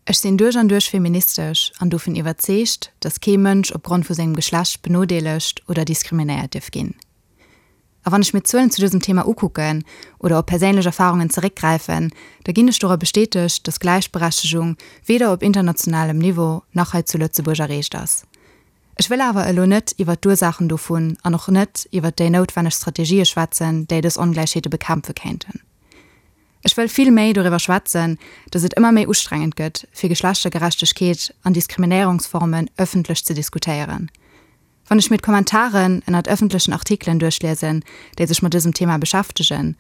Ech sinn duerch an duerch feministesch an dovun iwwerzeegt, dass kee Mënsch opgrond vu sengem Geschlecht benodeelegt oder diskriminéiert dierf ginn. A wann ech mir d'Zuelen zu dësem Thema ukucken oder op perséinlech Erfarungen zeréckgräifen, da ginn ech dora bestätegt, dass Gläichberechtegung weder op internationalem Niveau nach hei zu Lëtzebuerg erreecht ass. Ech wëll awer elo net iwwert d'Ursaachen dovun an och net iwwert déi noutwenneg Strategië schwätzen, déi dës Ongläichheete bekämpfe kéinten. Ech wëll vill méi doriwwer schwätzen, dass et ëmmer méi ustrengend gëtt, fir Geschlechtergerechtegkeet an Diskriminéierungsformen ëffentlech ze diskutéieren. Wann ech mir d'Kommentaren ënnert ëffentlechen Artikelen duerchliesen, déi sech mat dësem Thema beschäftegen,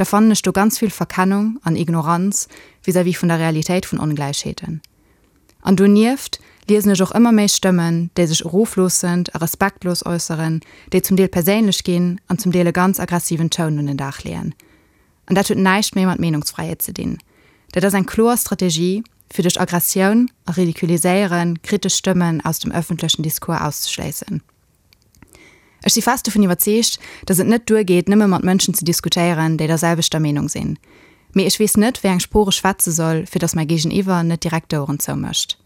da fannen ech do ganz vill Verkennung an Ignoranz vis-à-vis vun der Realitéit vun Ongläichheeten. An donieft liesen ech och ëmmer méi Stëmmen, déi sech erofloossend a respektlos äusseren, déi zum Deel perséinlech ginn an zum Deel e ganz aggressiven Toun un den Dag leeën. An dat huet näischt méi mat Meenungsfräiheet ze dinn. Dat ass eng kloer Strategie, fir duerch Aggressioun a Ridiculiséiere kritesch Stëmmen aus dem ëffentlechen Discours auszeschléissen. Ech si fest dovun iwwerzeegt, datt et net duergeet, nëmme mat Mënschen ze diskutéieren, déi der selwechter Meenung sinn. Mee ech weess net, wéi eng Sprooch ech schwätze soll, fir datt mäi Géigeniwwer net direkt d'Oueren zoumécht.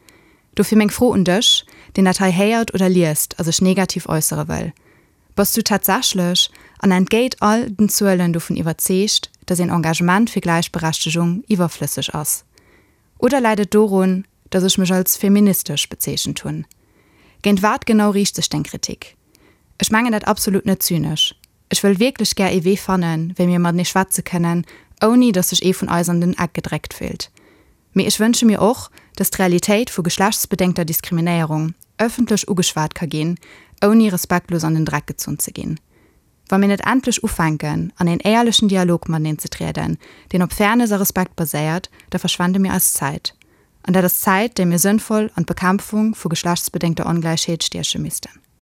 Dofir meng Fro un dech, deen dat hei héiert oder liest a sech negativ äussere wëll, Bass du tatsächlech, an entgéit all den Zuelen, dovun iwwerzeegt, dass een Engagement fir Gläichberechtegung iwwerflësseg ass? Oder läit et dorun, dass ech mech als feministesch bezeechent hunn? Géint wat genau riicht sech deng Kritik? Ech mengen dat absolut net zynesch. Ech wëll wierklech gär ee Wee fannen, wéi mir matenee schwätze kënnen, ouni dass sech ee vun eis an den Eck gedréckt fillt. Mee ech wënsche mir och, dass d'Realitéit vu geschlechtsbedéngter Diskriminéierung ëffentlech ugeschwat ka ginn, ouni respektlos an den Dreck gezunn ze ginn. Wa mir net endlech ufänken, an een éierlechen Dialog mateneen ze trieden, deen op Fairness a Respekt baséiert, da verschwende mir eis Zäit. An dat ass Zäit, déi mir sënnvoll an d'Bekämpfung vu geschlechtsbedéngter Ongläichheet stieche missten.